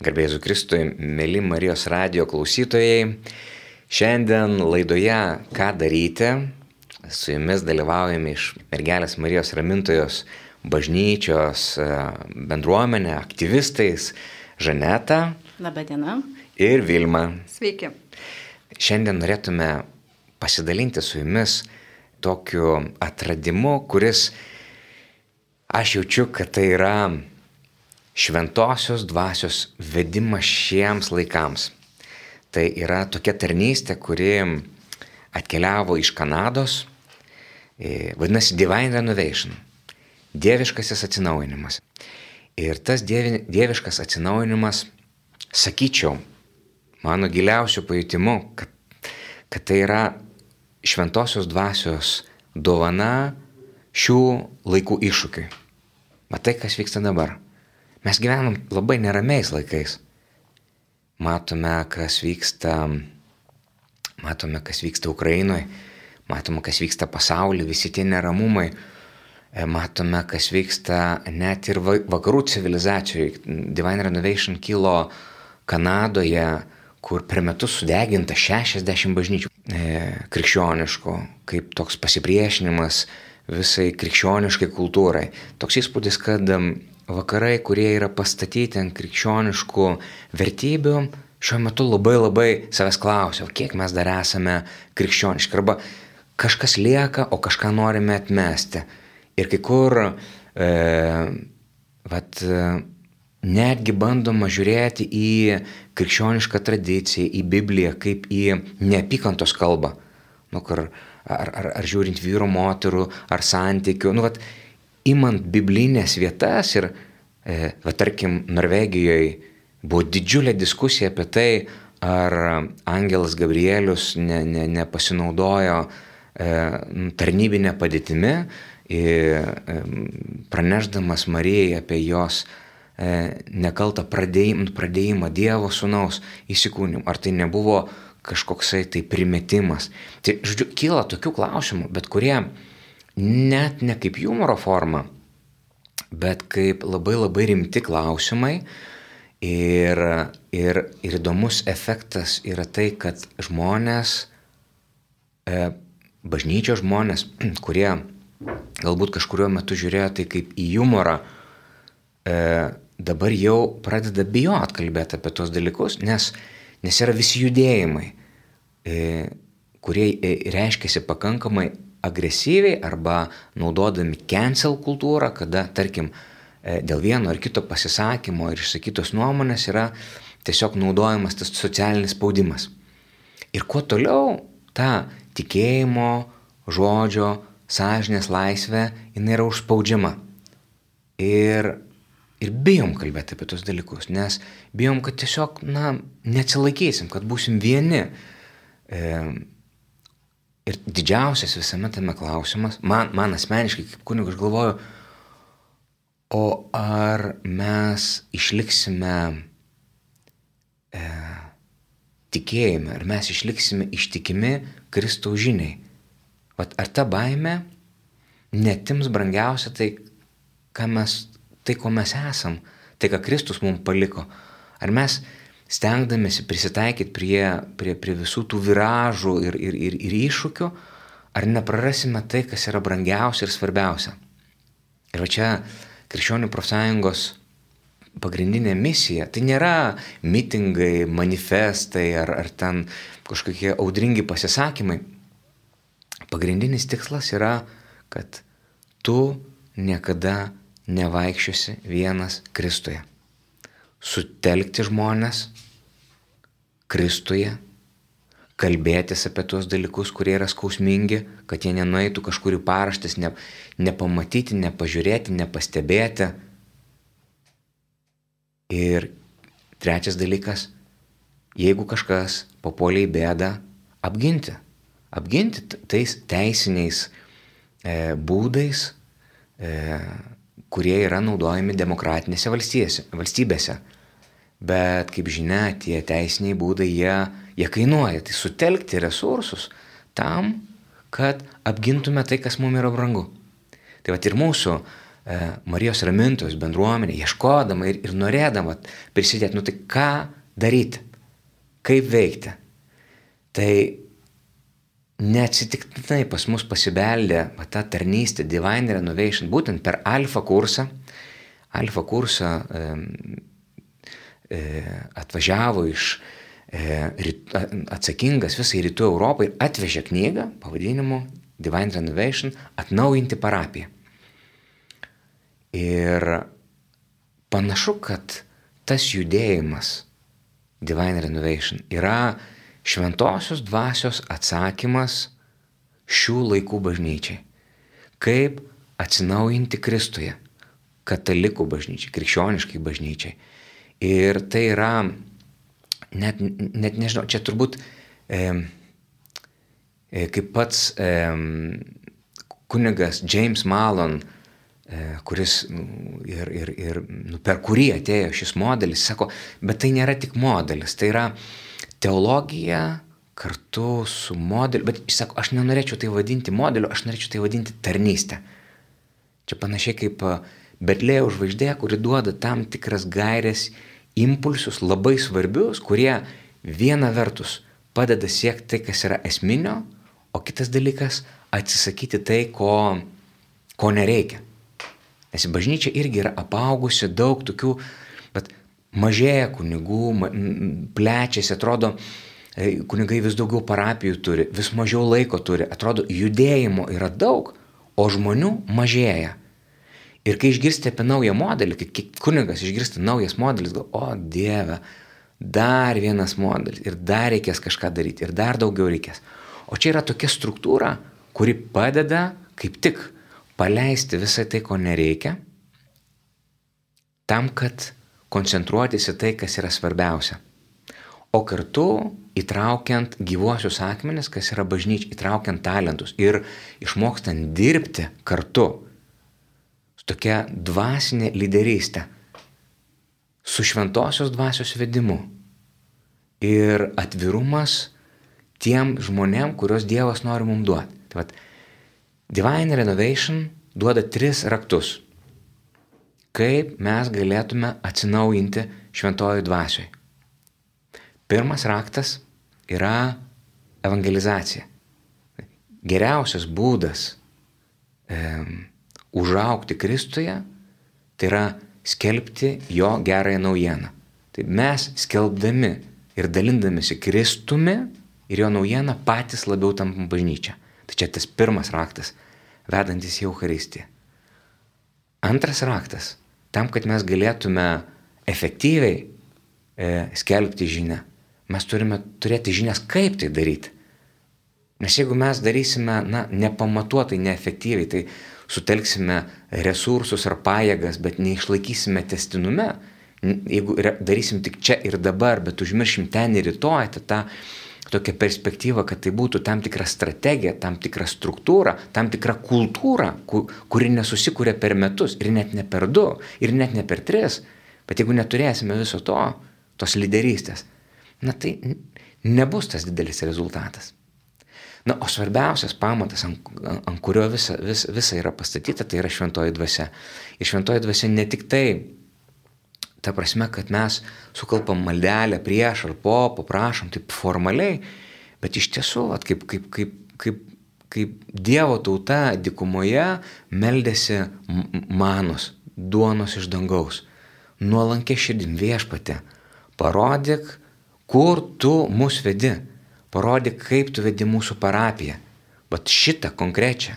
Garbėsiu Kristui, mėly Marijos radijo klausytojai. Šiandien laidoje Ką daryti? Su jumis dalyvaujame iš Mergelės Marijos Ramintojos bažnyčios bendruomenė, aktyvistais Žaneta. Labadiena. Ir Vilma. Sveiki. Šiandien norėtume pasidalinti su jumis tokiu atradimu, kuris aš jaučiu, kad tai yra šventosios dvasios vedimas šiems laikams. Tai yra tokia tarnystė, kuri atkeliavo iš Kanados, vadinasi Divine Renovation, dieviškasis atsinaujinimas. Ir tas dieviškas atsinaujinimas, sakyčiau, mano giliausiu pajutimu, kad tai yra šventosios dvasios dovana šių laikų iššūkiui. Matai, kas vyksta dabar. Mes gyvenam labai neramiais laikais. Matome, kas vyksta Ukrainoje, matome, kas vyksta pasaulyje, visi tie neramumai. Matome, kas vyksta net ir vakarų civilizacijoje. Divine Renovation kilo Kanadoje, kur per metus sudeginta 60 bažnyčių krikščioniškų, kaip toks pasipriešinimas visai krikščioniškai kultūrai. Toks įspūdis, kad vakarai, kurie yra pastatyti ant krikščioniškų vertybių, šiuo metu labai savęs klausia, kiek mes dar esame krikščioniški, arba kažkas lieka, o kažką norime atmesti. Ir kai kur netgi bandoma žiūrėti į krikščionišką tradiciją, į Bibliją, kaip į neapykantos kalbą. Ar žiūrint vyro, moterų, ar santykių. Imant biblinės vietas ir, tarkim, Norvegijoje buvo didžiulė diskusija apie tai, ar angelas Gabrielius nepasinaudojo tarnybinę padėtimi, pranešdamas Marijai apie jos nekaltą pradėjimą Dievo sūnaus įsikūnimą. Ar tai nebuvo kažkoksai tai primetimas? Tai, kyla tokių klausimų, bet kurie net ne kaip humoro forma, bet kaip labai rimti klausimai. Ir įdomus efektas yra tai, kad žmonės, bažnyčios žmonės, kurie galbūt kažkuriuo metu žiūrėjo tai kaip į humorą, dabar jau pradeda bijot kalbėti apie tos dalykus, nes yra visi judėjimai, kurie reiškiasi pakankamai agresyviai arba naudodami cancel kultūrą, kada, tarkim, dėl vieno ar kito pasisakymo ir išsakytos nuomonės yra tiesiog naudojamas tas socialinis spaudimas. Ir kuo toliau ta tikėjimo, žodžio, sąžinės laisvė, jinai yra užspaudžiama. Ir bijom kalbėti apie tos dalykus, nes bijom, kad tiesiog, neatsilaikysim, kad būsim vieni. Ir didžiausias visame tame klausimas, man asmeniškai kaip kunigas, aš galvoju, o ar mes išliksime tikėjime, ar mes išliksime ištikimi Kristaus žiniai. Ar ta baimė netims brangiausia tai, ko mes esam, tai, ką Kristus mums paliko. Ar mes stengdamėsi prisitaikyti prie visų tų viražų ir iššūkių, ar neprarasime tai, kas yra brangiausia ir svarbiausia. Ir čia Krikščionių profsąjungos pagrindinė misija, tai nėra mitingai, manifestai ar ten kažkokie audringi pasisakymai. Pagrindinis tikslas yra, kad tu niekada nevaikščiosi vienas Kristuje. Sutelkti žmonės Kristuje, kalbėtis apie tuos dalykus, kurie yra skausmingi, kad jie nenueitų kažkur į paraštes, nepamatyti, nepažiūrėti, nepastebėti. Ir trečias dalykas, jeigu kažkas papuolė į bėdą, apginti tais teisiniais būdais, kurie yra naudojami demokratinėse valstybėse. Bet, kaip žinia, tie teisiniai būdai, jie kainuoja. Tai sutelkti resursus tam, kad apgintume tai, kas mums yra brangu. Tai ir mūsų Marijos ramintojos bendruomenė, ieškodama ir norėdama prisidėti, tai ką daryti, kaip veikti. Tai neatsitiktinai pas mus pasibeldė ta tarnystė Divine Renovation, būtent per Alfa kursą. Alfa kursą atvažiavo atsakingas visai Rytų Europai ir atvežė knygą pavadinimu Divine Renovation atnaujinti parapiją. Ir panašu, kad tas judėjimas Divine Renovation yra šventosios dvasios atsakymas šių laikų bažnyčiai. Kaip atsinaujinti Kristuje, katalikų bažnyčiai, krikščioniškai bažnyčiai. Ir tai yra, net nežinau, čia turbūt kaip pats kunigas James Mallon, kuris per kurį atėjo šis modelis, sako, bet tai nėra tik modelis, tai yra teologija kartu su modeliu, bet jis sako, aš nenorėčiau tai vadinti modeliu, aš norėčiau tai vadinti tarnystę. Čia panašiai kaip Betlėjaus žvaigždė, kuri duoda tam tikras gairės, impulsus labai svarbius, kurie viena vertus padeda siekti tai, kas yra esminio, o kitas dalykas atsisakyti tai, ko nereikia. Nes bažnyčia irgi yra apaugusi daug tokių, bet mažėja kunigų, plečiasi, atrodo, kunigai vis daugiau parapijų turi, vis mažiau laiko turi, atrodo, judėjimo yra daug, o žmonių mažėja. Ir kai išgirsti apie naują modelį, kai kunigas išgirsta naujas modelis, gal, o Dieve, dar vienas modelis ir dar reikės kažką daryti ir dar daugiau reikės. O čia yra tokia struktūra, kuri padeda kaip tik paleisti visą tai, ko nereikia, tam, kad koncentruotis į tai, kas yra svarbiausia. O kartu įtraukiant gyvuosius akmenis, kas yra bažnyčia, įtraukiant talentus ir išmokstant dirbti kartu su tokia dvasinė lyderystė, su šventosios dvasios vedimu ir atvirumas tiem žmonėm, kurios Dievas nori mums duoti. Tai vat, Divine Renovation duoda 3 raktus, kaip mes galėtume atsinaujinti šventojoj dvasioj. Pirmas raktas yra evangelizacija. Geriausias būdas užaugti Kristuje, tai yra skelbti jo gerąją naujieną. Tai mes skelbdami ir dalindamisi Kristumi ir jo naujieną patys labiau tampam bažnyčia. Tai čia tas pirmas raktas, vedantis į Eucharistiją. Antras raktas, tam, kad mes galėtume efektyviai skelbti žinią, mes turime turėti žinias, kaip tai daryti. Nes jeigu mes darysime nepamatuotai, neefektyviai, tai sutelksime resursus ar pajėgas, bet neišlaikysime tęstinume. Jeigu darysim tik čia ir dabar, bet užmiršim ten ir rytoj, tą tokią perspektyvą, kad tai būtų tam tikra strategija, tam tikra struktūra, tam tikra kultūra, kuri nesusikūrė per metus ir net ne per 2 ir net ne per 3. Bet jeigu neturėsime viso tos lyderystės, tai nebus tas didelis rezultatas. O svarbiausias pamatas, ant kurio visa yra pastatyta, tai yra šventoji dvasia. Ir šventoji dvasia ne tik tai, ta prasme, kad mes sukalpam maldelę prieš ar po, paprašom taip formaliai, bet iš tiesų, kaip Dievo tauta dykumoje meldėsi manos, duonos iš dangaus. Nuolankia širdim, Viešpatie, parodyk, kur tu mus vedi. Parodyk, kaip tu vedi mūsų parapiją. Bet šitą konkrečią.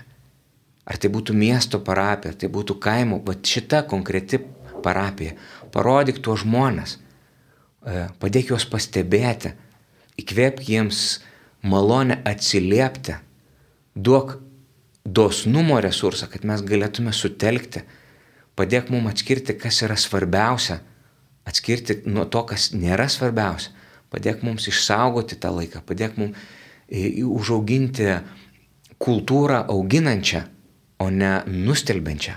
Ar tai būtų miesto parapija, ar tai būtų kaimo, bet šita konkreti parapija. Parodyk tuos žmonės. Padėk juos pastebėti. Įkvėpk jiems malonę atsiliepti. Duok dosnumo resursą, kad mes galėtume sutelkti. Padėk mums atskirti, kas yra svarbiausia. Atskirti nuo to, kas nėra svarbiausia. Padėk mums išsaugoti tą laiką, padėk mums užauginti kultūrą auginančią, o ne nustelbiančią.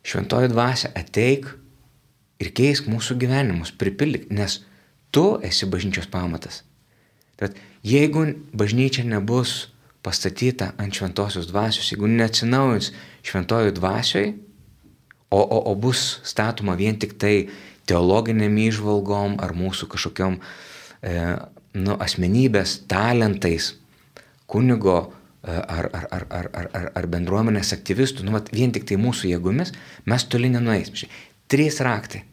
Šventoji dvasia, ateik ir keisk mūsų gyvenimus, pripildyk, nes tu esi bažnyčios pamatas. Tad jeigu bažnyčia nebus pastatyta ant šventosios dvasios, jeigu neatsinaujins šventojoj dvasioj, o bus statoma vien tik tai teologiniam įžvalgom ar mūsų kažkokiom asmenybės, talentais, kunigo ar bendruomenės aktyvistų, vien tik tai mūsų jėgomis, mes toli nenueisim. 3 raktai.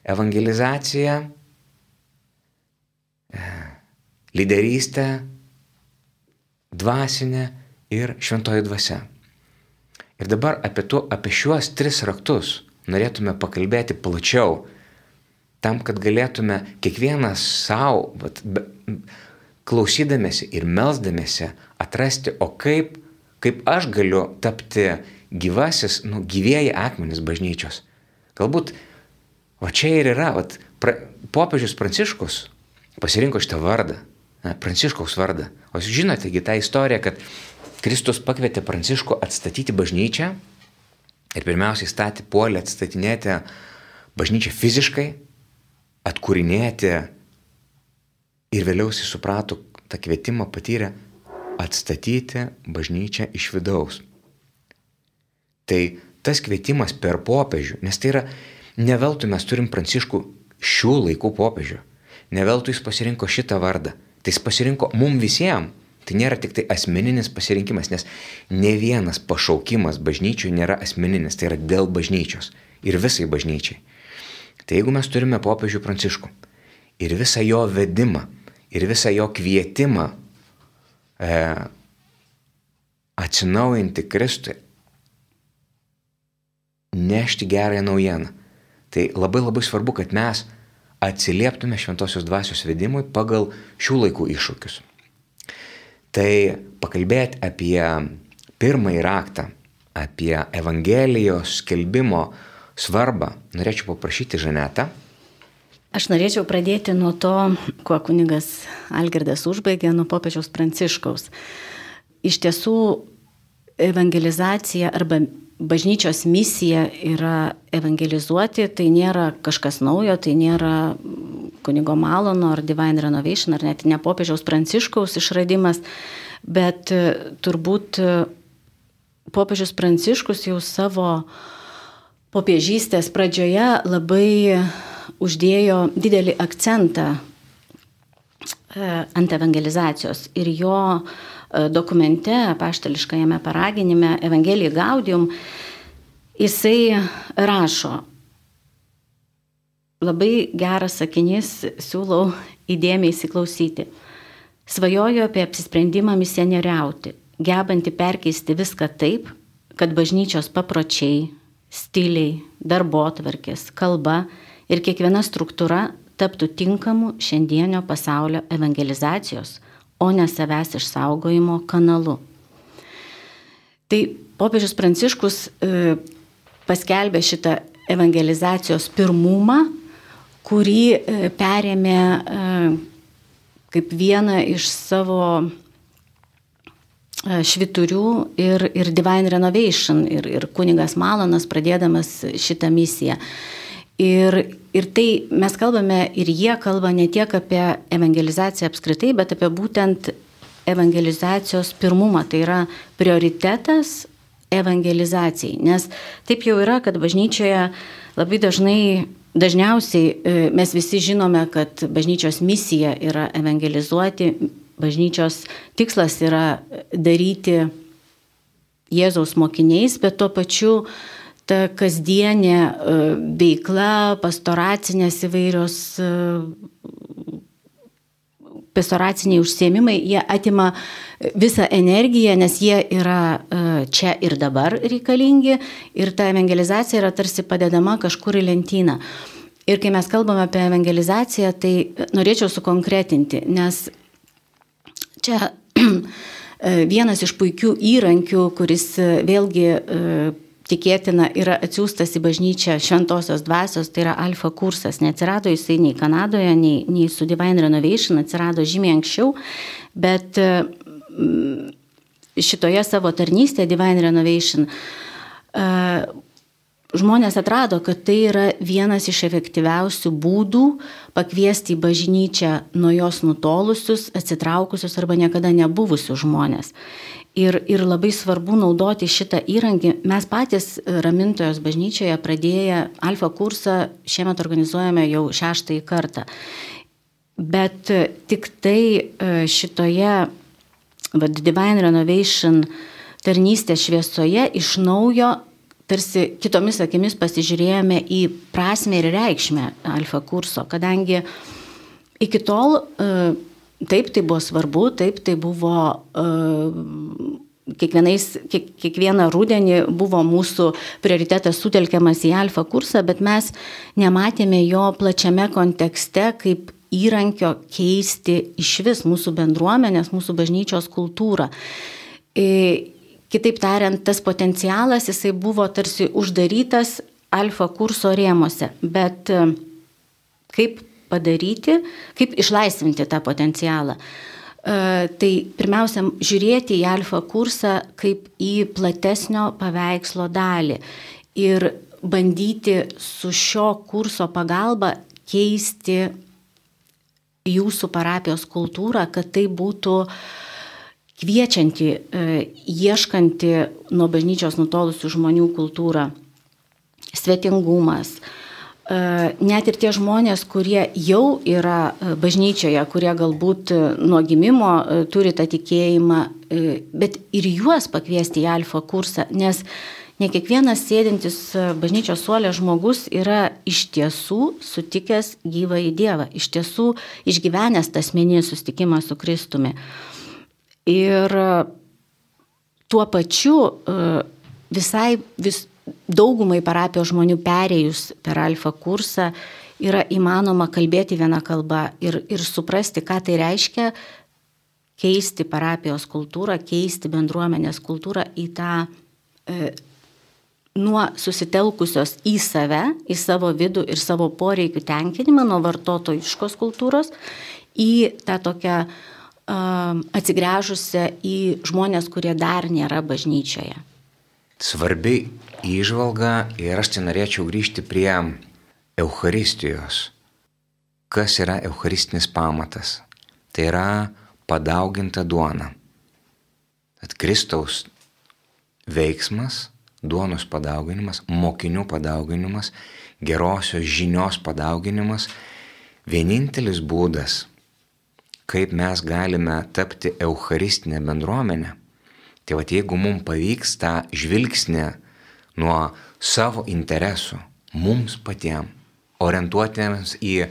Evangelizacija, lyderystė, dvasinė ir šventoji dvasia. Ir dabar apie šiuos 3 raktus norėtume pakalbėti plačiau, tam, kad galėtume kiekvienas savo, klausydamėsi ir melsdamėsi, atrasti, o kaip aš galiu tapti gyvieji akmenys bažnyčios. Galbūt, čia ir yra, popiežius Pranciškus pasirinko šitą vardą, Pranciškaus vardą. O jūs žinote, tą istoriją, kad Kristus pakvietė Pranciškų atstatyti bažnyčią ir pirmiausiai puolė atstatinėti bažnyčią fiziškai, atkūrinėti ir vėliau jis suprato, tą kvietimą patyrė atstatyti bažnyčią iš vidaus. Tai tas kvietimas per popiežių, nes tai yra, ne veltui mes turim Pranciškų šių laikų popiežių, ne veltui jis pasirinko šitą vardą, tai jis pasirinko mum visiems. Tai nėra tik tai asmeninis pasirinkimas, nes ne vienas pašaukimas bažnyčių nėra asmeninis, tai yra dėl bažnyčios ir visai bažnyčiai. Tai jeigu mes turime popiežių Pranciškų ir visą jo vedimą, ir visą jo kvietimą atsinaujinti Kristui, nešti gerąją naujieną, tai labai labai svarbu, kad mes atsilieptume šventosios dvasios vedimui pagal šių laikų iššūkius. Tai pakalbėti apie pirmąjį raktą, apie Evangelijos skelbimo svarbą, norėčiau paprašyti Žanetą. Aš norėčiau pradėti nuo to, kuo kunigas Algirdas užbaigė, nuo popiežiaus Pranciškaus. Iš tiesų, evangelizacija arba bažnyčios misija yra evangelizuoti, tai nėra kažkas naujo, tai nėra kunigo Malono ar Divine Renovation, ar net ne popiežiaus Pranciškaus išradimas, bet turbūt popiežius Pranciškus jau savo popiežystės pradžioje labai uždėjo didelį akcentą ant evangelizacijos ir jo dokumente, apaštališkajame paraginime Evangelii Gaudium, jisai rašo, labai geras sakinys, siūlau įdėmiai įsiklausyti. Svajoju apie apsisprendimą misionieriauti, gebantį perkeisti viską taip, kad bažnyčios papročiai, stiliai, darbotvarkės, kalba ir kiekviena struktūra taptų tinkamu šiandienio pasaulio evangelizacijos, o ne savęs išsaugojimo kanalu. Tai popiežius Pranciškus paskelbė šitą evangelizacijos pirmumą, kurį perėmė kaip vieną iš savo švyturių ir Divine Renovation, ir kunigas Malonas pradėdamas šitą misiją. Ir tai mes kalbame, ir jie kalba ne tiek apie evangelizaciją apskritai, bet apie būtent evangelizacijos pirmumą. Tai yra prioritetas evangelizacijai. Nes taip jau yra, kad bažnyčioje labai dažniausiai mes visi žinome, kad bažnyčios misija yra evangelizuoti, bažnyčios tikslas yra daryti Jėzaus mokiniais, bet tuo pačiu ta kasdienė veikla, pastoracinės įvairios, pastoraciniai užsiėmimai, jie atima visą energiją, nes jie yra čia ir dabar reikalingi ir ta evangelizacija yra tarsi padedama kažkur į lentyną. Ir kai mes kalbame apie evangelizaciją, tai norėčiau sukonkretinti, nes čia vienas iš puikių įrankių, kuris vėlgi tikėtina yra atsiųstas į bažnyčią šventosios dvasios, tai yra alfa kursas. Neatsirado jisai nei Kanadoje, nei su Divine Renovation, atsirado žymiai anksčiau, bet šitoje savo tarnystėje Divine Renovation žmonės atrado, kad tai yra vienas iš efektyviausių būdų pakviesti į bažnyčią nuo jos nutolusius, atsitraukusius arba niekada nebuvusius žmonės. Ir labai svarbu naudoti šitą įrankį. Mes patys Ramintojos bažnyčioje pradėję Alfa kursą šiemet organizuojame jau 6. kartą. Bet tik tai šitoje Divine Renovation tarnystės šviesoje iš naujo tarsi kitomis akimis pasižiūrėjome į prasmę ir reikšmę Alfa kurso, kadangi iki tol taip tai buvo svarbu, taip tai buvo kiekvieną rudenį buvo mūsų prioritetas sutelkiamas į Alfa kursą, bet mes nematėme jo plačiame kontekste kaip įrankio keisti išvis mūsų bendruomenės, mūsų bažnyčios kultūrą. Kitaip tariant, tas potencialas jisai buvo tarsi uždarytas Alfa kurso rėmose, bet kaip padaryti, kaip išlaisvinti tą potencialą. Tai pirmiausia, žiūrėti į Alfa kursą kaip į platesnio paveikslo dalį ir bandyti su šio kurso pagalba keisti jūsų parapijos kultūrą, kad tai būtų kviečianti, ieškanti nuo bažnyčios nutolusių žmonių kultūrą, svetingumas. Net ir tie žmonės, kurie jau yra bažnyčioje, kurie galbūt nuo gimimo turi tą tikėjimą, bet ir juos pakviesti į Alfa kursą, nes ne kiekvienas sėdintis bažnyčios suole žmogus yra iš tiesų sutikęs gyvąjį Dievą, iš tiesų išgyvenęs tą asmeninį susitikimą su Kristumi. Ir tuo pačiu daugumai parapijos žmonių perėjus per Alfa kursą yra įmanoma kalbėti vieną kalbą ir suprasti, ką tai reiškia keisti parapijos kultūrą, keisti bendruomenės kultūrą į tą nuo susitelkusios į save, į savo vidų ir savo poreikių tenkinimą, nuo vartotojiškos kultūros, į tą tokią atsigręžusią į žmonės, kurie dar nėra bažnyčioje. Svarbi įžvalga ir aš norėčiau grįžti prie Eucharistijos. Kas yra eucharistinis pamatas? Tai yra padauginta duona. Tad Kristaus veiksmas, duonos padauginimas, mokinių padauginimas, gerosios žinios padauginimas, vienintelis būdas, kaip mes galime tapti eucharistinę bendruomenę. Tai jeigu mums pavyks tą žvilgsnį nuo savo interesų, mums patiems, orientuotėms į,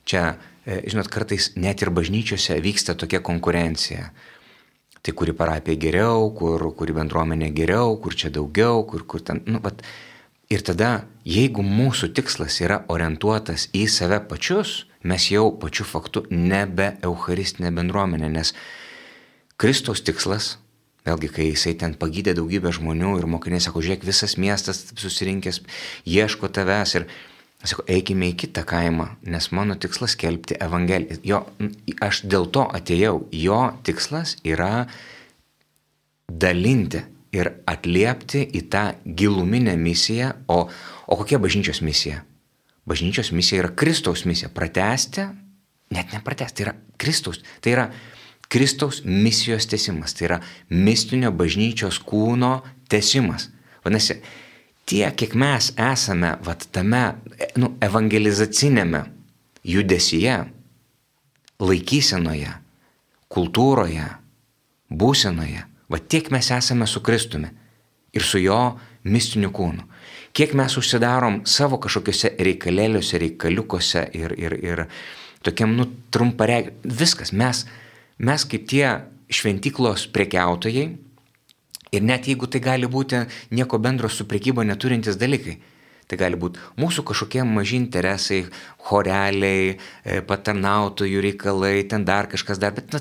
čia, žinot, kartais net ir bažnyčiose vyksta tokia konkurencija. Tai kuri parapija geriau, kuri bendruomenė geriau, kur čia daugiau, kur ten, Ir tada, jeigu mūsų tikslas yra orientuotas į save pačius, mes jau pačiu faktu nebe eucharistinė bendruomenė, nes Kristaus tikslas, vėlgi, kai jisai ten pagydė daugybę žmonių ir mokiniai sako, žiūrėk, visas miestas susirinkęs, ieško tavęs ir sako, eikime į kitą kaimą, nes mano tikslas skelbti Evangeliją. Aš dėl to atėjau, jo tikslas yra dalinti ir atliepti į tą giluminę misiją, o kokia bažnyčios misija? Bažnyčios misija yra Kristaus misija, pratęsti, net nepratęsti, tai yra Kristaus, tai yra Kristaus misijos tęsimas, tai yra mistinio bažnyčios kūno tęsimas. Vadinasi, tiek, kiek mes esame tame evangelizacinėme judesyje, laikysenoje, kultūroje, būsenoje, tiek mes esame su Kristumi ir su jo mistiniu kūnu. Kiek mes užsidarom savo kažkokiuose reikalėliuose, reikaliukose ir tokiam trumparegiam. Viskas, mes kaip tie šventyklos prekiautojai ir net jeigu tai gali būti nieko bendro su prekyba neturintys dalykai, tai gali būti mūsų kažkokie maži interesai, choreliai, patarnautojų reikalai, ten dar kažkas dar, bet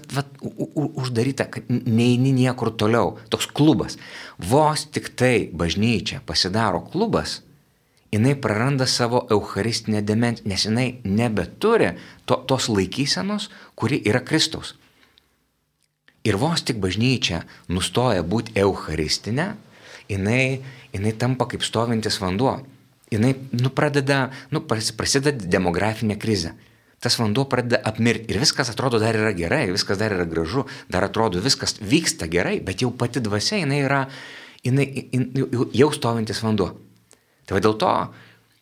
uždaryta, kad neini niekur toliau. Toks klubas. Vos tik tai bažnyčia pasidaro klubas, jinai praranda savo eucharistinę dimensiją, nes jinai nebeturi tos laikysenos, kuri yra Kristaus. Ir vos tik bažnyčia nustoja būti eucharistinė, jinai tampa kaip stovintis vanduo. Jinai prasideda demografinė krizė. Tas vanduo pradeda apmirti ir viskas atrodo dar yra gerai, viskas dar yra gražu, dar atrodo viskas vyksta gerai, bet jau pati dvasia jinai jau stovintis vanduo. Tai dėl to,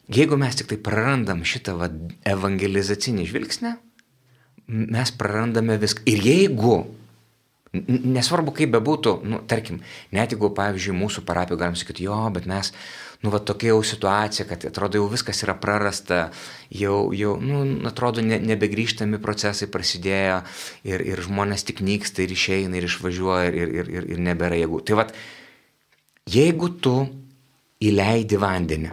jeigu mes tik tai prarandam šitą evangelizacinį žvilgsnį, mes prarandame viską. Ir jeigu, nesvarbu kaip bebūtų, tarkim, net jeigu, pavyzdžiui, mūsų parapijoje galim sakyti, jo, bet mes, tokia jau situacija, kad atrodo jau viskas yra prarasta, jau atrodo nebegrįžtami procesai prasidėjo ir žmonės tik nyksta ir išeina ir išvažiuoja ir nebėra jėgų. Tai jeigu tu įleidi vandenį,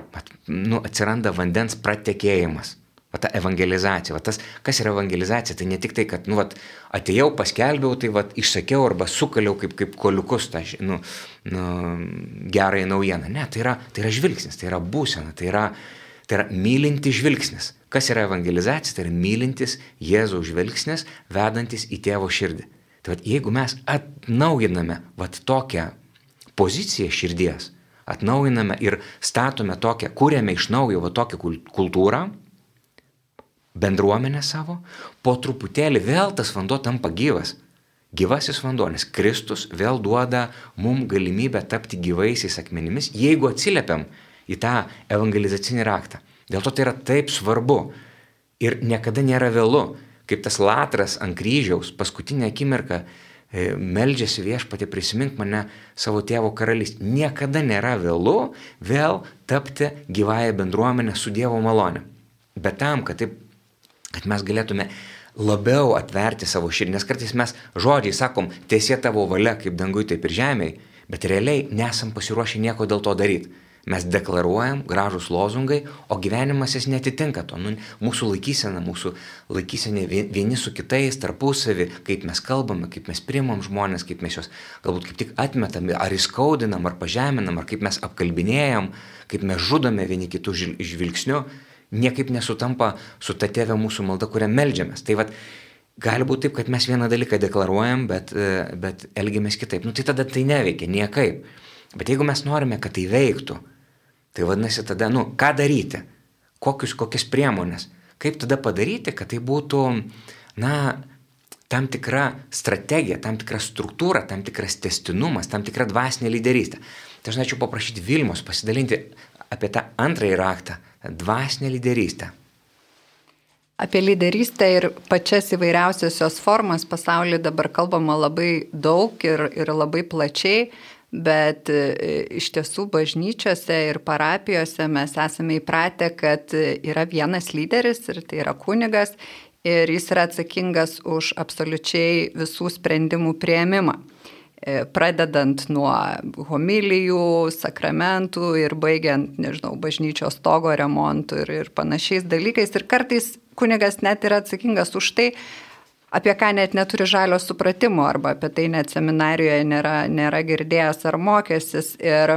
atsiranda vandens pratekėjimas, ta evangelizacija, tas, kas yra evangelizacija, tai ne tik tai, kad, atėjau, paskelbiau, tai, išsakiau arba sukaliau kaip koliukus tą, gerąją naujieną. Ne, tai yra žvilgsnis, tai yra būsena, tai yra mylintis žvilgsnis. Kas yra evangelizacija? Tai yra mylintis Jėzaus žvilgsnis, vedantis į tėvo širdį. Tai jeigu mes atnaujiname tokią poziciją širdies, atnaujiname ir statome tokią, kūrėme iš naujo tokią kultūrą, bendruomenę savo, po truputėlį vėl tas vanduo tampa gyvas. Gyvasis vanduo, nes Kristus vėl duoda mums galimybę tapti gyvaisiais akmenimis, jeigu atsiliepiam į tą evangelizacinį raktą. Dėl to tai yra taip svarbu ir niekada nėra vėlu, kaip tas Latras ant kryžiaus paskutinę akimirką meldžiasi Viešpatie, prisimink mane savo tėvo karalystę. Niekada nėra vėlu vėl tapti gyvąją bendruomenę su Dievo malone. Bet tam, kad mes galėtume labiau atverti savo širdį, nes kartais mes žodžiai sakom, teesie tavo valia kaip dangui, taip ir žemėje, bet realiai nesam pasiruošę nieko dėl to daryti. Mes deklaruojam gražus lozungai, o gyvenimas jis netitinka to. Mūsų laikysena vieni su kitais, tarpusavį, kaip mes kalbame, kaip mes priimam žmonės, kaip mes juos galbūt kaip tik atmetam, ar įskaudinam, ar pažeminam, ar kaip mes apkalbinėjam, kaip mes žudome vieni kitų žvilgsniu, niekaip nesutampa su ta tėve mūsų malda, kurią meldžiamės. Tai gali būti taip, kad mes vieną dalyką deklaruojam, bet elgiamės kitaip. Tai tada tai neveikia, niekaip. Bet jeigu mes norime, kad tai veiktų, tai vadinasi tada, ką daryti? Kokias priemonės? Kaip tada padaryti, kad tai būtų, tam tikra strategija, tam tikra struktūra, tam tikras tęstinumas, tam tikra dvasinė lyderystė. Tai aš norėčiau paprašyti Vilmos pasidalinti apie tą antrąjį raktą, dvasinę lyderystę. Apie lyderystę ir pačias įvairiausias jos formas pasaulyje dabar kalbama labai daug ir labai plačiai, bet iš tiesų bažnyčiose ir parapijose mes esame įpratę, kad yra vienas lyderis ir tai yra kunigas ir jis yra atsakingas už absoliučiai visų sprendimų priėmimą. Pradedant nuo homilijų, sakramentų ir baigiant, bažnyčios stogo remontų ir panašiais dalykais. Ir kartais kunigas net yra atsakingas už tai, apie ką net neturi žalio supratimo arba apie tai net seminarijoje nėra girdėjęs ar mokęsis. Ir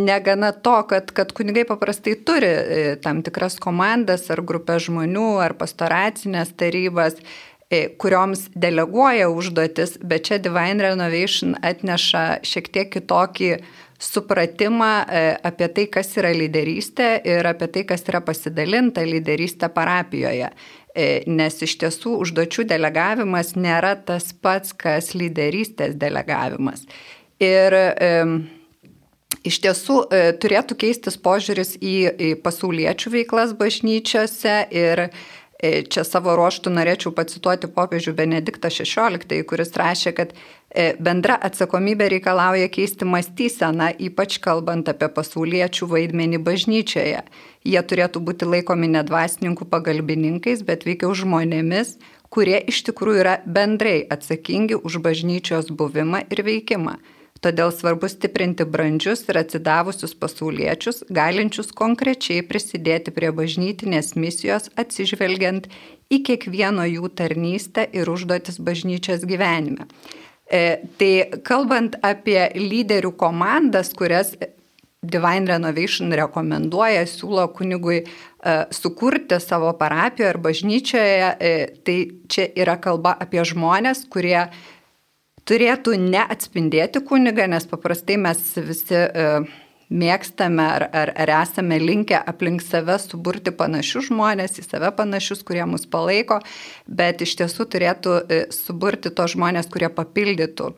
negana to, kad kunigai paprastai turi tam tikras komandas ar grupės žmonių ar pastoracinės tarybas, kurioms deleguoja užduotis, bet čia Divine Renovation atneša šiek tiek kitokį supratimą apie tai, kas yra lyderystė ir apie tai, kas yra pasidalinta lyderystė parapijoje. Nes iš tiesų užduočių delegavimas nėra tas pats, kas lyderystės delegavimas. Ir iš tiesų turėtų keistis požiūris į pasauliečių veiklas bažnyčiose ir čia savo ruožtų norėčiau pacituoti popiežių Benediktą XVI, kuris rašė, kad bendra atsakomybė reikalauja keisti mąstyseną, ypač kalbant apie pasauliečių vaidmenį bažnyčioje. Jie turėtų būti laikomi ne dvasininkų pagalbininkais, bet veikiau žmonėmis, kurie iš tikrųjų yra bendrai atsakingi už bažnyčios buvimą ir veikimą. Todėl svarbu stiprinti brandžius ir atsidavusius pasauliečius, galinčius konkrečiai prisidėti prie bažnytinės misijos, atsižvelgiant į kiekvieno jų tarnystę ir užduotis bažnyčios gyvenime. Tai kalbant apie lyderių komandas, kurias Divine Renovation rekomenduoja, siūlo kunigui sukurti savo parapijoje ar bažnyčioje, tai čia yra kalba apie žmonės, kurie turėtų neatspindėti kunigą, nes paprastai mes visi mėgstame ar esame linkę aplink save suburti panašius žmonės, į save panašius, kurie mus palaiko, bet iš tiesų turėtų suburti tos žmonės, kurie papildytų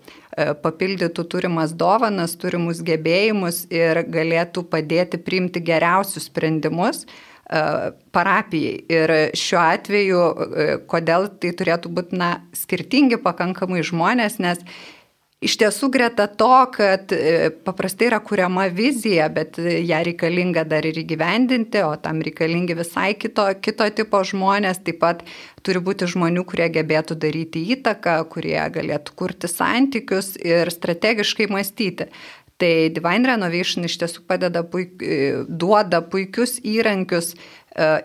turimas dovanas, turimus gebėjimus ir galėtų padėti priimti geriausius sprendimus parapijai. Ir šiuo atveju, kodėl tai turėtų būti skirtingi pakankamai žmonės, nes iš tiesų greta to, kad paprastai yra kuriama vizija, bet ją reikalinga dar ir įgyvendinti, o tam reikalingi visai kito tipo žmonės, taip pat turi būti žmonių, kurie gebėtų daryti įtaką, kurie galėtų kurti santykius ir strategiškai mąstyti. Tai Divine Renovation iš tiesų duoda puikius įrankius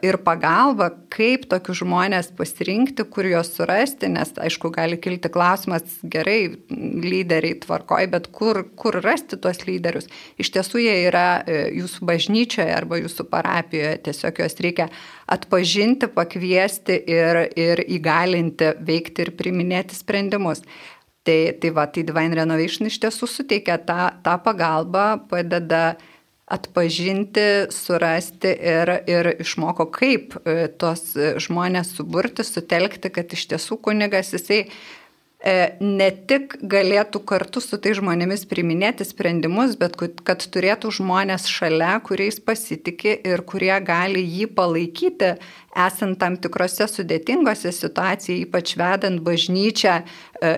ir pagalbą, kaip tokius žmonės pasirinkti, kur juos surasti, nes, aišku, gali kilti klausimas, gerai, lyderiai tvarkoj, bet kur rasti tuos lyderius? Iš tiesų jie yra jūsų bažnyčioje arba jūsų parapijoje, tiesiog juos reikia atpažinti, pakviesti ir įgalinti veikti ir priiminėti sprendimus. Tai Divine Renovation iš tiesų suteikia tą pagalbą, padeda atpažinti, surasti ir išmoko, kaip tos žmonės suburti, sutelkti, kad iš tiesų kunigas jisai ne tik galėtų kartu su tai žmonėmis priiminėti sprendimus, bet kad turėtų žmonės šalia, kuriais pasitikė ir kurie gali jį palaikyti, esant tam tikrose sudėtingose situacijose, ypač vedant bažnyčią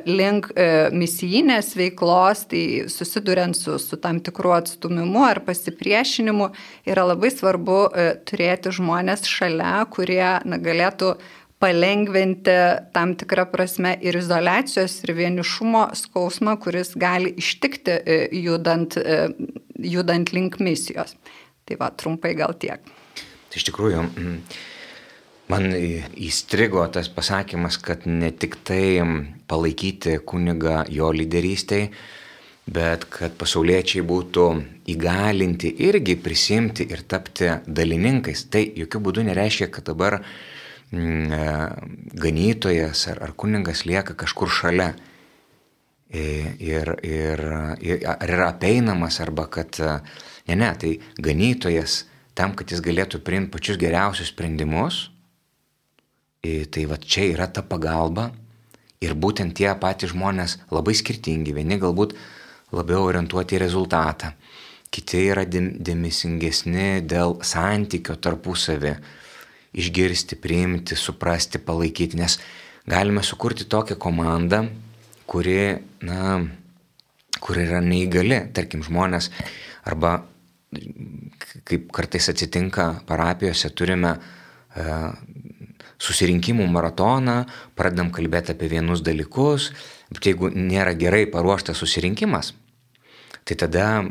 link misijinės veiklos, tai susiduriant su tam tikru atstumimu ar pasipriešinimu, yra labai svarbu turėti žmonės šalia, kurie galėtų palengventi tam tikrą prasme ir izoliacijos, ir vienišumo skausmą, kuris gali ištikti judant link misijos. Tai trumpai gal tiek. Tai iš tikrųjų, man įstrigo tas pasakymas, kad ne tik tai palaikyti kunigą jo lyderystėj, bet kad pasauliečiai būtų įgalinti irgi prisimti ir tapti dalininkais. Tai jokių būdų nereiškia, kad dabar ganytojas ar kunigas lieka kažkur šalia ir yra apeinamas arba kad ne, tai ganytojas tam, kad jis galėtų priimti pačius geriausius sprendimus, tai čia yra ta pagalba ir būtent tie patys žmonės labai skirtingi, vieni galbūt labiau orientuoti į rezultatą, kiti yra dėmesingesni dėl santykio tarpusavį, išgirsti, priimti, suprasti, palaikyti, nes galime sukurti tokią komandą, kuri yra neįgali, tarkim, žmonės, arba kaip kartais atsitinka parapijose, turime susirinkimų maratoną, pradedam kalbėti apie vienus dalykus, bet jeigu nėra gerai paruoštas susirinkimas, tai tada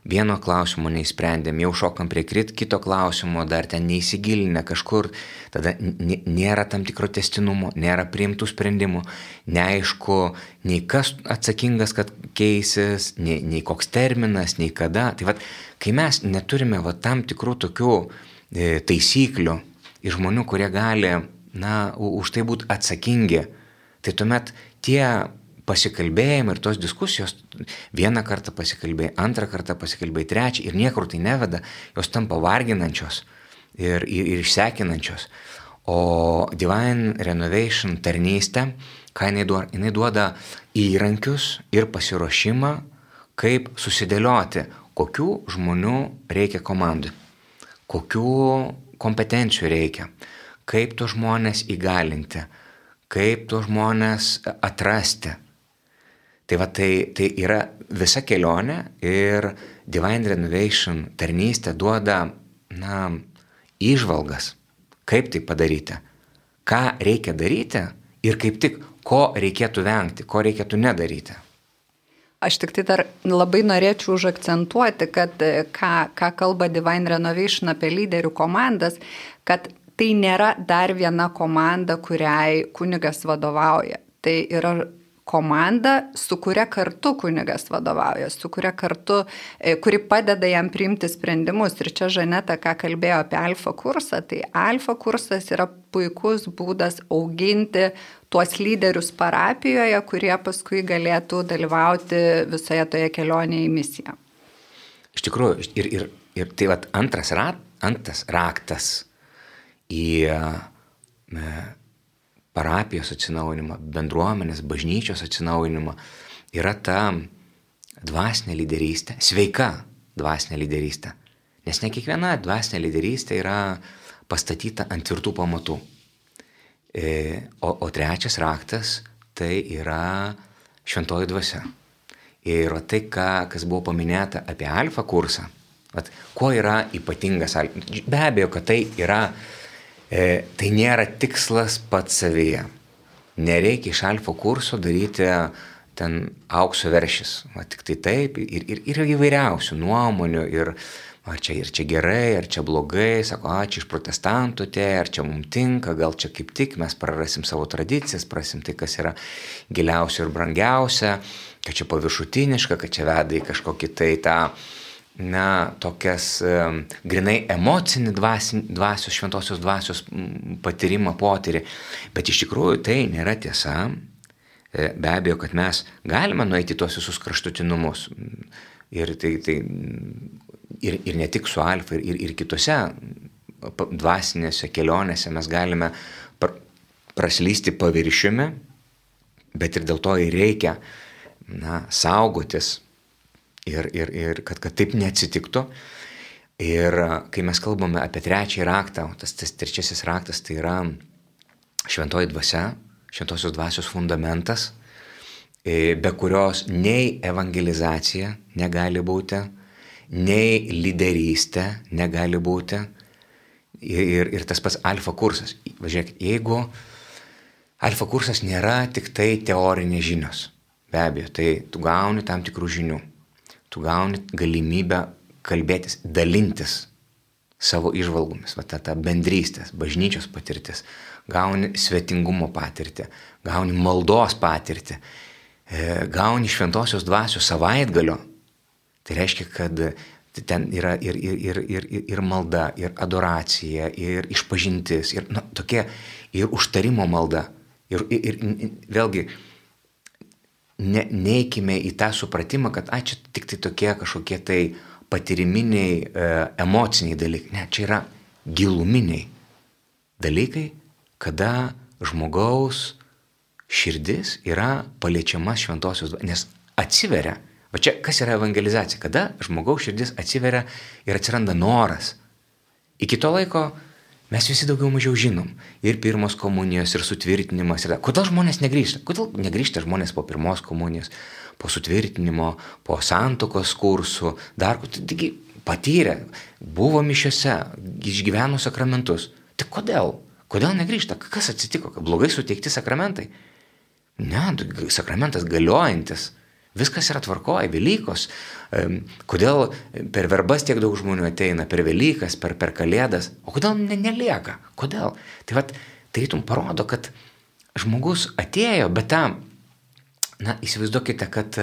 vieno klausimo neįsprendėm, jau šokam prie kito klausimo, dar ten neįsigilinę kažkur, tada nėra tam tikro tęstinumo, nėra priimtų sprendimų, neaišku, nei kas atsakingas, kad keisis, nei koks terminas, nei kada. Tai kai mes neturime tam tikrų tokių taisyklių ir žmonių, kurie gali, už tai būti atsakingi, tai tuomet tie pasikalbėjimai ir tos diskusijos, vieną kartą pasikalbėjai, antrą kartą pasikalbėjai, trečią ir niekur tai neveda, jos tampa varginančios ir išsekinančios. O Divine Renovation tarnystė, ką jinai duoda įrankius ir pasiruošimą, kaip susidėlioti, kokių žmonių reikia komandai, kokių kompetencijų reikia, kaip tos žmonės įgalinti, kaip tos žmonės atrasti. Tai yra visa kelionė ir Divine Renovation tarnystė duoda, įžvalgas, kaip tai padaryti, ką reikia daryti ir kaip tik, ko reikėtų vengti, ko reikėtų nedaryti. Aš tik tai dar labai norėčiau užakcentuoti, kad ką kalba Divine Renovation apie lyderių komandas, kad tai nėra dar viena komanda, kuriai kunigas vadovauja. Tai yra komanda, su kuria kartu kunigas vadovauja, su kuria kartu, kuri padeda jam priimti sprendimus. Ir čia Žaneta, ką kalbėjo apie alfa kursą, tai alfa kursas yra puikus būdas auginti tuos lyderius parapijoje, kurie paskui galėtų dalyvauti visoje toje kelionėje į misiją. Iš tikrųjų, ir tai vat antras raktas į parapijos atsinaujinimą, bendruomenės, bažnyčios atsinaujinimą yra ta dvasinė lyderystė, sveika dvasinė lyderystė. Nes ne kiekviena dvasinė lyderystė yra pastatyta ant tvirtų pamatų. O trečias raktas tai yra šventoji dvasia. Ir tai, kas buvo paminėta apie alfa kursą, kuo yra ypatingas alfa. Be abejo, kad tai yra, tai nėra tikslas pats savyje. Nereikia iš alfa kurso daryti ten aukso veršis. Tik tai taip ir įvairiausių nuomonių ir ar čia gerai, ar čia blogai, sako, čia iš protestantų ar čia mums tinka, gal čia kaip tik mes prarasim savo tradicijas, prarasim tai, kas yra giliausia ir brangiausia, kad čia paviršutiniška, kad čia veda į kažkokį tai tą, tokias grinai emocinį dvasios, šventosios dvasios patyrimą, potyrį. Bet iš tikrųjų tai nėra tiesa. Be abejo, kad mes galime nueiti tuos visus kraštutinumus. Ir ne tik su alfa, ir kitose dvasinėse kelionėse mes galime praslysti paviršiumi, bet ir dėl to ir reikia saugotis ir kad taip neatsitiktų. Ir kai mes kalbame apie trečiąjį raktą, tas trečiasis raktas tai yra šventoji dvasia, šventosios dvasios fundamentas, be kurios nei evangelizacija negali būti, nei lyderystė negali būti ir tas pats alfa kursas. Važiuokit, jeigu alfa kursas nėra tik tai teorinės žinios, be abejo, tai tu gauni tam tikrų žinių, tu gauni galimybę kalbėtis, dalintis savo įžvalgomis, ta bendrystės, bažnyčios patirtis, gauni svetingumo patirtį, gauni maldos patirtį, gauni šventosios dvasios savaitgalio. Tai reiškia, kad ten yra ir malda, ir adoracija, ir išpažintis, ir tokia, ir užtarimo malda. Ir vėlgi, neikime į tą supratimą, kad čia tik tai tokie kažkokie tai patyriminiai, emociniai dalykai. Ne, čia yra giluminiai dalykai, kada žmogaus širdis yra paliečiama šventosios dvasios, nes atsiveria. O čia kas yra evangelizacija? Kada žmogaus širdis atsiveria ir atsiranda noras. Iki to laiko mes visi daugiau mažiau žinom. Ir pirmos komunijos, ir sutvirtinimas. Kodėl žmonės negrįžta? Kodėl negrįžta žmonės po pirmos komunijos, po sutvirtinimo, po santuokos kursų, dar taigi patyrė, buvo mišiose, išgyveno sakramentus. Tai kodėl? Kodėl negrįžta? Kas atsitiko? Blogai suteikti sakramentai? Ne, sakramentas galiojantis. Viskas yra tvarkoje, Velykos. Kodėl per verbas tiek daug žmonių ateina, per Velykas, per Kalėdas, o kodėl nelieka? Kodėl? Tai tarytum parodo, kad žmogus atėjo, bet įsivaizduokite, kad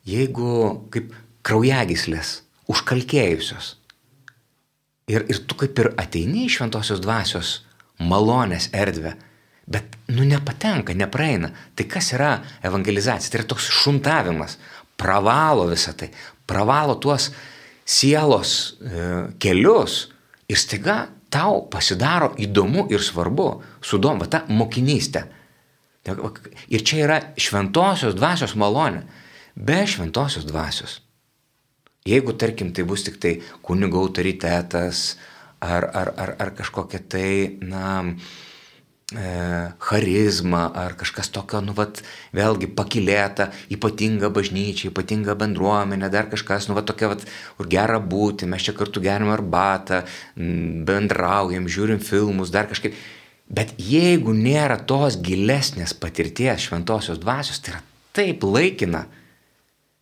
jeigu kaip kraujagyslės užkalkėjusios ir tu kaip ir ateini į šventosios dvasios malonės erdvę, bet nepatenka, nepraeina. Tai kas yra evangelizacija? Tai yra toks šuntavimas, pravalo visą tai, pravalo tuos sielos kelius ir staiga tau pasidaro įdomu ir svarbu, sudomba ta mokinystė. Ir čia yra šventosios dvasios malonė. Be šventosios dvasios, jeigu tarkim tai bus tik tai kunigo autoritetas ar kažkokia tai, charizma ar kažkas tokio, vėlgi pakilėta, ypatinga bažnyčia, ypatinga bendruomenė, dar kažkas, tokia, kur gera būti, mes čia kartu geriam arbatą, bendraujam, žiūrim filmus, dar kažkaip. Bet jeigu nėra tos gilesnės patirties šventosios dvasios, tai yra taip laikina,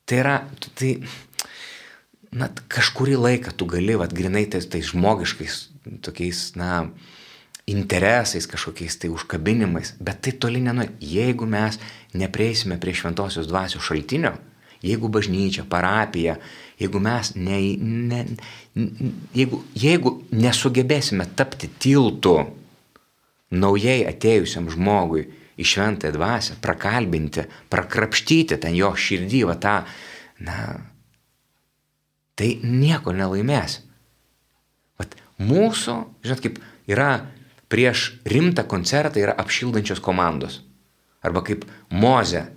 tai yra, kažkurį laiką tu gali, grinai tais žmogiškais, tokiais, interesais, kažkokiais tai užkabinimais, bet tai toli nenuėjo. Jeigu mes neprieisime prie šventosios dvasios šaltinio, jeigu bažnyčia, parapija, jeigu mes jeigu nesugebėsime tapti tiltu naujai atėjusiam žmogui į šventąją dvasią, prakalbinti, prakrapštyti ten jo širdį, va tą, tai nieko nelaimės. Vat mūsų, žinot, kaip yra prieš rimtą koncertą yra apšildančios komandos. Arba kaip Mozė,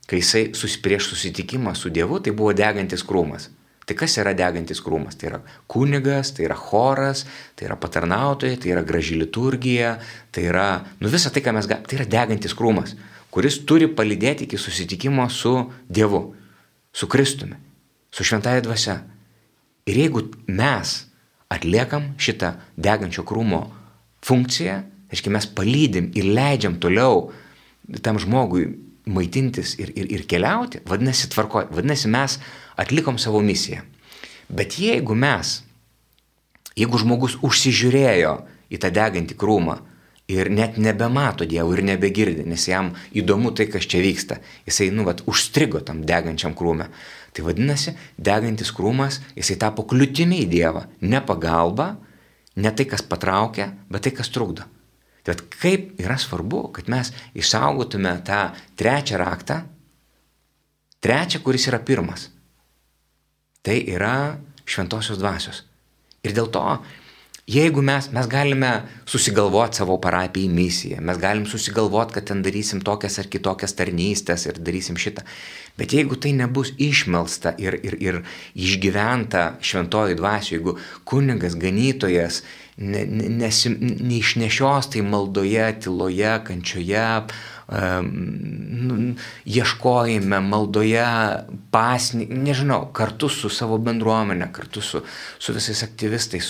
kai jisai prieš susitikimą su Dievu, tai buvo degantis krūmas. Tai kas yra degantis krūmas? Tai yra kunigas, tai yra choras, tai yra patarnautojai, tai yra graži liturgija, tai yra, visa tai, ką mes galime, tai yra degantis krūmas, kuris turi palydėti iki susitikimo su Dievu, su Kristumi, su šventąja dvasia. Ir jeigu mes atliekam šitą degančio krūmo funkciją, reiškia mes palydim ir leidžiam toliau tam žmogui maitintis ir keliauti, vadinasi tvarkoj, vadinasi mes atlikom savo misiją. Bet jeigu žmogus užsižiūrėjo į tą degantį krūmą ir net nebemato Dievo ir nebegirdi, nes jam įdomu tai, kas čia vyksta, jisai, užstrigo tam degančiam krūme, tai vadinasi, degantis krūmas, jisai tapo kliūtimi į Dievą, ne pagalba, ne tai, kas patraukia, bet tai, kas trukdo. Tai kaip yra svarbu, kad mes išsaugotume tą trečią raktą, kuris yra pirmas. Tai yra šventosios dvasios. Ir dėl to, jeigu mes galime susigalvoti savo parapijai misiją, mes galim susigalvoti, kad ten darysim tokias ar kitokias tarnystės ir darysim šitą. Bet jeigu tai nebus išmelsta ir išgyventa šventoji dvasioje, jeigu kunigas, ganytojas neišnešios tai maldoje, tyloje, kančioje, ieškojime, maldoje, nežinau, kartu su savo bendruomenė, kartu su visais aktyvistais,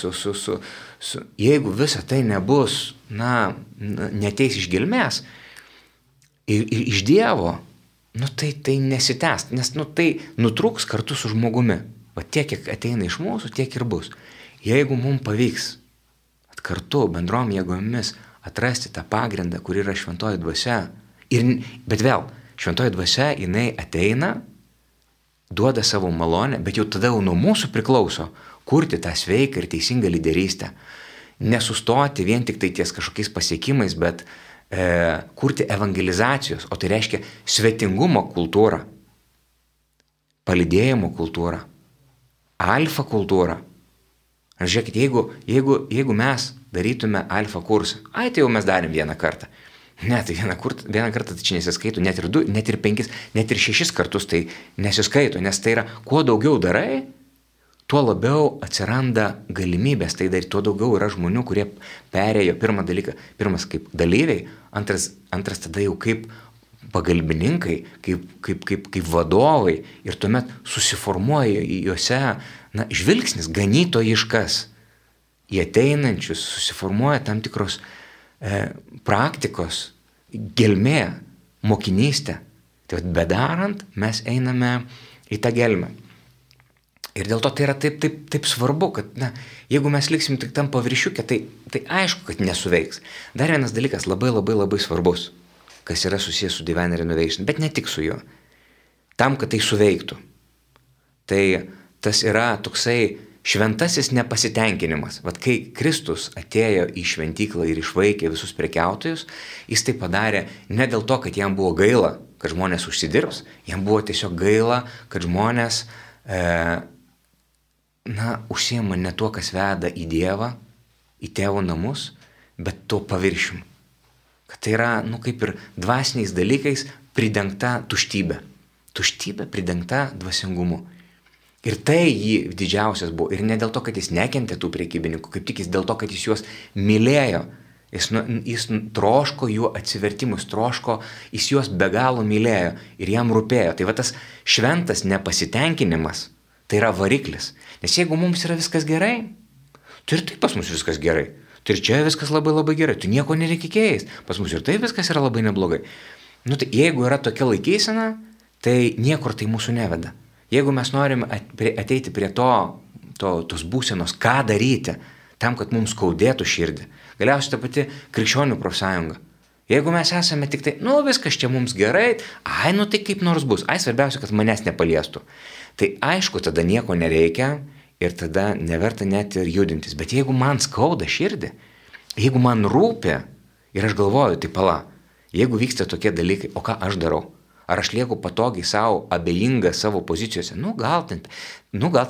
jeigu visa tai nebus, neteis iš gelmės ir iš Dievo, tai nesitęs, nes tai nutrūks kartu su žmogumi. Va tiek, kiek ateina iš mūsų, tiek ir bus. Jeigu mums pavyks kartu bendrom jėgomis atrasti tą pagrindą, kur yra šventoji dvasia, bet vėl, šventoji dvasia, jinai ateina, duoda savo malonę, bet jau tada nuo mūsų priklauso kurti tą sveiką ir teisingą lyderystę. Nesustoti vien tik tai ties kažkokiais pasiekimais, bet kurti evangelizacijos, o tai reiškia svetingumo kultūrą, palydėjimo kultūrą, alfa kultūrą. Ar žiūrėkit, jeigu mes darytume alfa kursą, tai jau mes darėm vieną kartą. Ne, tai vieną kartą tai čia nesiskaito, net ir 2, net ir 5, net ir 6 kartus tai nesiskaito, nes tai yra, kuo daugiau darai, tuo labiau atsiranda galimybės tai daryti, tuo daugiau yra žmonių, kurie perėjo pirmas kaip dalyviai, antras tada jau kaip pagalbininkai, kaip vadovai ir tuomet susiformuoja juose žvilgsnis ganytojiškas į ateinančius, susiformuoja tam tikros praktikos, gelmė, mokinystė. Tai bedarant mes einame į tą gelmę. Ir dėl to tai yra taip svarbu, kad jeigu mes liksim tik tam paviršiuke, tai aišku, kad nesuveiks. Dar vienas dalykas labai svarbus, kas yra susijęs su Divine Renovation, bet ne tik su juo. Tam, kad tai suveiktų. Tai tas yra toksai šventasis nepasitenkinimas. Vat kai Kristus atėjo į šventyklą ir išvaikė visus prekiautojus, jis tai padarė ne dėl to, kad jam buvo gaila, kad žmonės užsidirbs, jam buvo tiesiog gaila, kad žmonės užsiima ne tuo, kas veda į Dievą, į tėvo namus, bet tuo paviršium. Kad tai yra, kaip ir dvasiniais dalykais pridengta tuštybė. Tuštybė pridengta dvasingumu. Ir tai jį didžiausias buvo. Ir ne dėl to, kad jis nekentė tų prekybininkų, kaip tik jis dėl to, kad jis juos mylėjo. Jis troško jų atsivertimus, jis juos be galo mylėjo ir jam rūpėjo. Tai va tas šventas nepasitenkinimas, tai yra variklis. Nes jeigu mums yra viskas gerai, tai ir taip pas mus viskas gerai. Tai ir čia viskas labai gerai, tu nieko nereikia keist. Pas mus ir taip viskas yra labai neblogai. Tai jeigu yra tokia laikysena, tai niekur tai mūsų neveda. Jeigu mes norim ateiti prie tos būsenos, ką daryti, tam, kad mums skaudėtų širdį, galiausiai ta pati krikščionių profsąjunga. Jeigu mes esame tik tai, viskas čia mums gerai, tai kaip nors bus, svarbiausia, kad manęs nepaliestų. Tai aišku, tada nieko nereikia ir tada neverta net ir judintis. Bet jeigu man skauda širdį, jeigu man rūpi ir aš galvoju, tai pala, Jeigu vyksta tokie dalykai, o ką aš darau? Ar aš lieku patogiai savo, abejinga savo pozicijose? Gal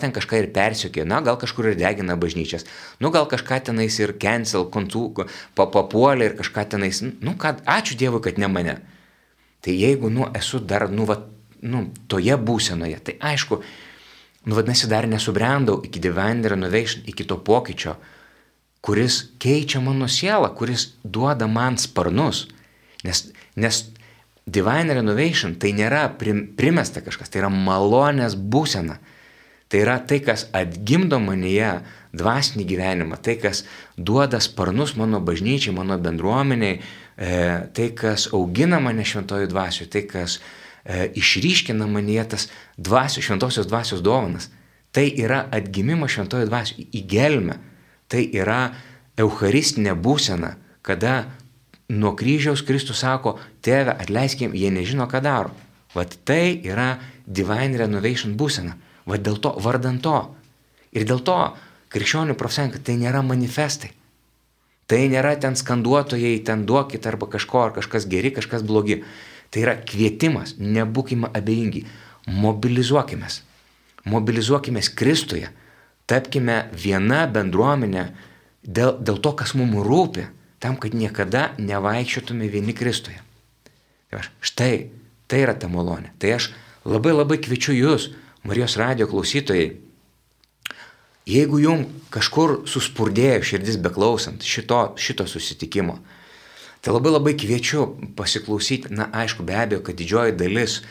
ten kažką ir persiokė, gal kažkur ir degina bažnyčias, gal kažką tenais ir cancel, papuolė ir kažką tenais, ačiū Dievui, kad ne mane. Tai jeigu, esu dar, toje būsenoje, tai aišku, vadinasi, dar nesubrendau iki Divine Renovation, iki to pokyčio, kuris keičia mano sielą, kuris duoda man sparnus, nes Divine Renovation tai nėra primesta kažkas, tai yra malonės būsena. Tai yra tai, kas atgimdo manyje dvasinį gyvenimą, tai, kas duoda sparnus mano bažnyčiai, mano bendruomeniai, tai, kas augina mane šventojų dvasių, tai, kas išryškina manyje tas šventosios dvasios dovanas. Tai yra atgimimo šventojų dvasių į gelmę. Tai yra eucharistinė būsena, kada nuo kryžiaus Kristus sako, Tėve, atleiskim, jie nežino, ką daro. Vat tai yra Divine Renovation būsena. Vat dėl to, vardant to. Ir dėl to krikščionių profsąjunga tai nėra manifestai. Tai nėra ten skanduotojai, ten duokit arba kažko, ar kažkas geri, kažkas blogi. Tai yra kvietimas, nebūkime abejingi. Mobilizuokimės. Mobilizuokimės Kristuje. Tapkime viena bendruomenė dėl to, kas mums rūpi. Tam, kad niekada nevaikščiotume vieni Kristuje. Štai, tai yra ta malonė. Tai aš labai kviečiu jūs, Marijos radijo klausytojai, jeigu jums kažkur suspurdėjo širdis beklausant šito susitikimo, tai labai kviečiu pasiklausyti, aišku, be abejo, kad didžioji dalis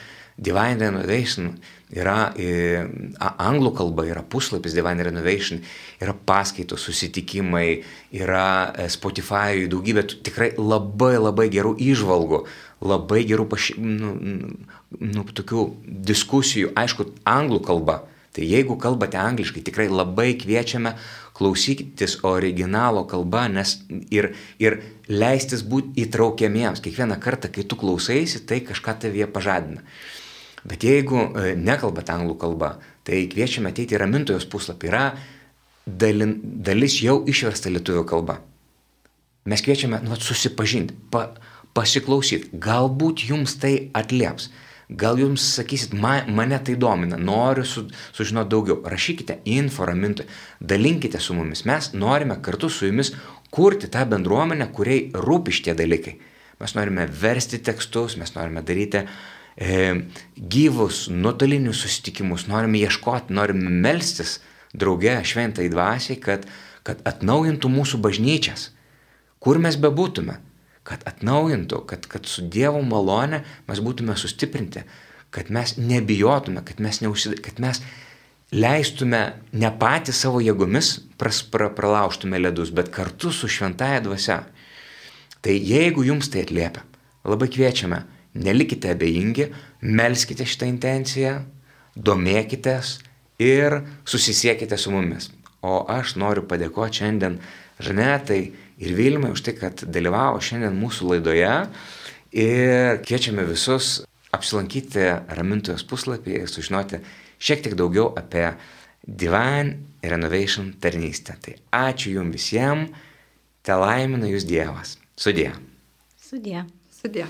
Divine Renovation yra anglų kalba, yra puslapis Divine Renovation, yra paskaitos, susitikimai, yra Spotify, daugybė tikrai labai gerų įžvalgų, labai gerų tokių diskusijų, aišku, anglų kalba. Tai jeigu kalbate angliškai, tikrai labai kviečiame klausytis originalo kalba, nes ir leistis būti įtraukiamiems. Kiekvieną kartą, kai tu klausaisi, tai kažką tavyje pažadina. Bet jeigu nekalbate anglų kalba, tai kviečiame ateiti į Ramintojos puslapį. Yra dalis jau išversta lietuvių kalba. Mes kviečiame susipažinti, pasiklausyti. Galbūt jums tai atlieps. Gal jums sakysit, mane tai domina, noriu sužinoti daugiau. Rašykite info Ramintojai, dalinkite su mumis. Mes norime kartu su jumis kurti tą bendruomenę, kuriai rūpi šitie dalykai. Mes norime versti tekstus, mes norime daryti gyvus, nuotolinius susitikimus, norime ieškoti, norime melstis drauge šventai dvasiai, kad atnaujintų mūsų bažnyčias, kur mes bebūtume, kad atnaujintų, kad su Dievo malone mes būtume sustiprinti, kad mes nebijotume, kad mes leistume ne patys savo jėgomis pralaužtume ledus, bet kartu su šventaja dvasia. Tai jeigu jums tai atliepia, labai kviečiame, nelikite abejingi, melskite šitą intenciją, domėkitės ir susisiekite su mumis. O aš noriu padėkoti šiandien Žanetai ir Vilmai už tai, kad dalyvavo šiandien mūsų laidoje ir kviečiame visus apsilankyti Ramintojos puslapį ir sužinoti šiek tiek daugiau apie Divine Renovation tarnystę. Tai ačiū jums visiems, te laimina jūs Dievas. Sudie. Sudie. Sudie.